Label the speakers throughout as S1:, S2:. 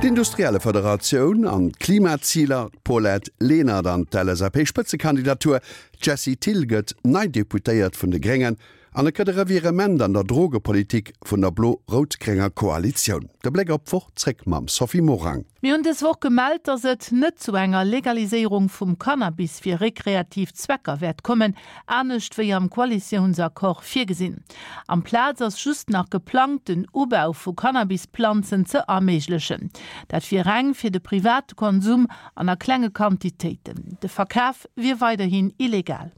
S1: D'Industriellefederatioun an d'Klimaziler, d'Paulette Lenert an d'LSAP-Spëtzekandidatur, d'Jessie Thill gëtt nei Deputéiert vun de Gréngen an et gëtt e Revirement an der Drogepolitik vun der blo-rout-grénger Koalitioun. De Bléck op d'Woch zréck mam Sophie Morang.
S2: Mir hunn dës Woch gemellt, datt et net zu enger Legaliséierung vum Cannabis fir rekreativ Zwecker wäert kommen, anescht wéi am Koalitiounsaccord virgesinn. Amplaz ass just nach geplangt, den Ubau vu Cannabisplanzen ze erméiglechen. Dat wier reng fir de private Konsum an a klenge Quantitéiten. De Verkaf wier weiderhin illegal.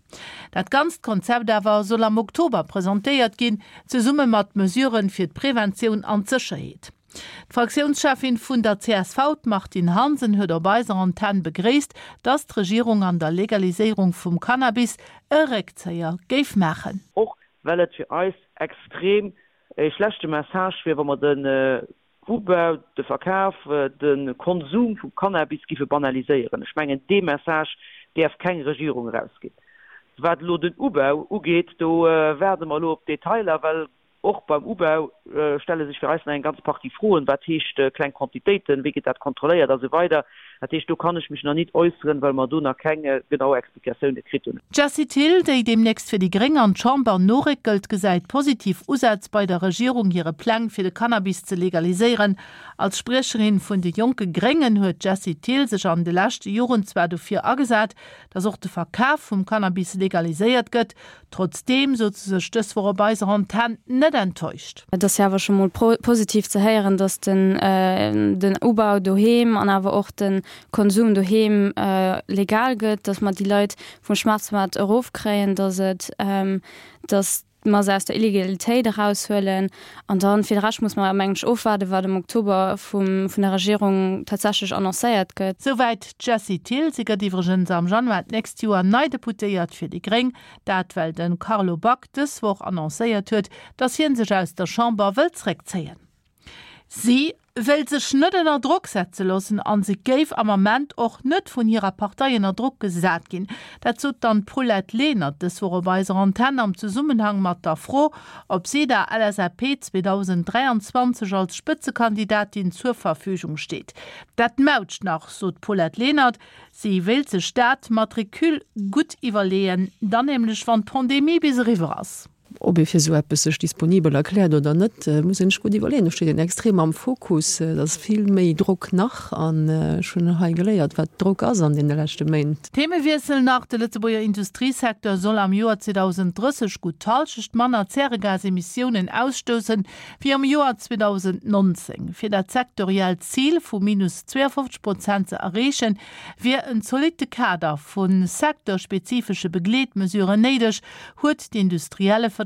S2: Dat ganzt Konzept awer soll am Oktober presentéiert ginn, zesumme mat Mesuren fir d'Preventioun an d'Sécherheet. D'Fraktiounscheffin vun der csv, d'Martine Hansen, huet op eiser Antenn begréisst, datt d'Regierung an der Legaliséierung vum Cannabis e Réckzéier géif maachen.
S3: Och well et fir eis extrem e schlechte Message wier, wa mer den Ubau, de Verkaf, de Konsum vu Cannabis giffe banaliséieren. Ech mengen, dee Message däerf keng Regierung erausginn. Wat elo den Ubau ugeet, do waarde mer elo op d'Detailer, well och beim Ubau stelle sech fir eis nach eng ganz Partie Froen, Wat heescht kleng Quantitéiten, wéi gëtt dat kontrolléiert a sou weider. Dat heescht, do kann ech mech nach nit äusseren, well mer do nach keng genau Explikatioune kritt hunn.
S2: D'Jessie Thill, déi deemnächst fir déi Gréng an d'Chamber noréckelt, gesäit positiv Usätz bei der Regierung hire Pläng fir de Cannabis ze legaliséieren. Als Spriecherin vun de jonke Gréngen huet d'Jessie Thill sech an de leschte Joren zwar dofir agesat, datt och de Verkaf vum Cannabis legaliséiert gëtt. Trotzdeem sot se sech dës Woch op eiser Antenn net enttäuscht.
S4: Et ass jo awer scho mol positiv ze héieren, datt den Ubau doheem an awer och de Konsum doheem legal gëtt, datt mer déi Leit vum Schwarzmaart erofkréien, datt et, datt mer se aus der Illegalitéit eraushuelen. An dann, fir de Rescht muss mer, mengen ech, ofwaarden, wat am Oktober vum, vun der Regierung tatsächlech annoncéiert gëtt.
S2: Souwäit d'Jessie Thill. Si gëtt iwwregens am Januar d'nächst Joer nei Deputéiert fir déi Gréng. Dat well de Carlo Back dës Woch annoncéiert huet, datt hie sech aus der Chamber wëll zréckzéien. Si wéilt sech net ënner Drock setze loossen an se géif am Ament och net vun hirer Partei ënner Drock gesat ginn. Dat sot dann d'Paulette Lenert dës Woch op eiser Antenn am Zesummenhang mat der Fro, ob si der LSAP 2023 als Spëtzekandidatin zur Verfügung steet. Dat mautscht nach, sot d'Paulette Lenert. Si wéilt sech dat mat Recul gutt iwwerleeën, dann nämlech wann d'Pandemie bis eriwwer ass.
S5: Ob ee fir esou eppes sech disponibel erkläert oder net, muss een sech gutt iwwerleeën. Do steet een extrem am Fokus. Et ass vill méi Drock nach an ech hunn hei geléiert, wat Drock ass an deene leschte Méint.
S2: Themewiessel nach, De Lëtzebuerger Industriesecteur soll am Joer 2030 gutt d'Hallschecht manner Zäregasemissiounen ausstoussen, wéi am Joer 2019. Fir dat sektoriellt Zil vu minus 52 Prozent ze erreechen, wier en zolitte Kader vu secteurspezifesche Begleetmesuren néideg, huet d'Industriellefederatioun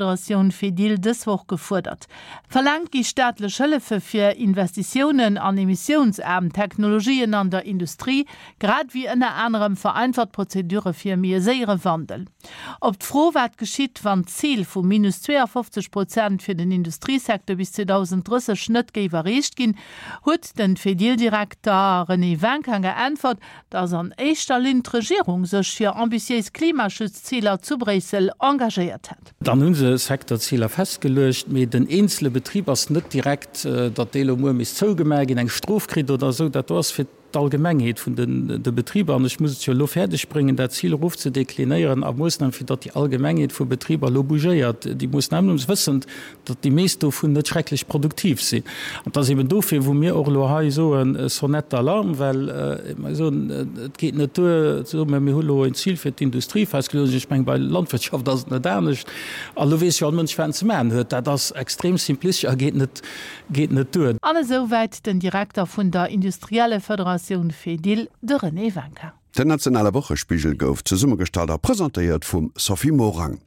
S2: Fedil dës Woch gefuerdert. Verlaangt gi staatlech Hëllefe fir Investitiounen an emissiounsaarm Technologien an der Industrie, grad ewéi ënner anerem vereinfacht Prozedure fir méi e séiere Wandel. Op d'Fro, wat geschitt, wann d'Zil vu minus 52 Prozent fir den Industriesecteur bis 2030 net géif erreecht ginn, huet den Fedil-Direkter René Winkin geäntwert, Dass an éischter Linn d'Regierung sech fir ambitiéis Klimaschutzziler zu Bréissel engagéiert hätt.
S6: Dann hu se Secteurziler festgeluecht, mee den eenzele Betrib ass net direkt, datt dee lo muer misst zougemaach ginn, eng Strof kritt oder esou. Dat do ass fir d'Allgemengheet vun de Betriber. An ech muss et jo elo fäerdeg bréngen, dat Zil erofzedeklinéieren a Moossnamen, fir datt déi Allgemengheet vu Betriber elo bougéiert. Déi Moossnamen, wëssend, datt déi meescht dovun net schrecklech produktiv sinn. An et ass eben dofir, wou mir och elo hei soen, Sonnette d'alarme, well mer soen, et geet net duer ze soen, mä mir hu elo en Zil fir d'Industrie festgeluecht. Ech mengen, bei Landwirtschaft ass et net anescht. A lo weess jo all Mënsch, wat en ze maachen huet. Dat ass extrem simplistesch a geet net, geet net duer.
S2: An esou wäit den Direkter vun der Industriellefederatioun Fedil, de René Winkin.
S1: Den nationale Wochespigel gouf zesummegestallt a presentéiert vum Sophie Morang.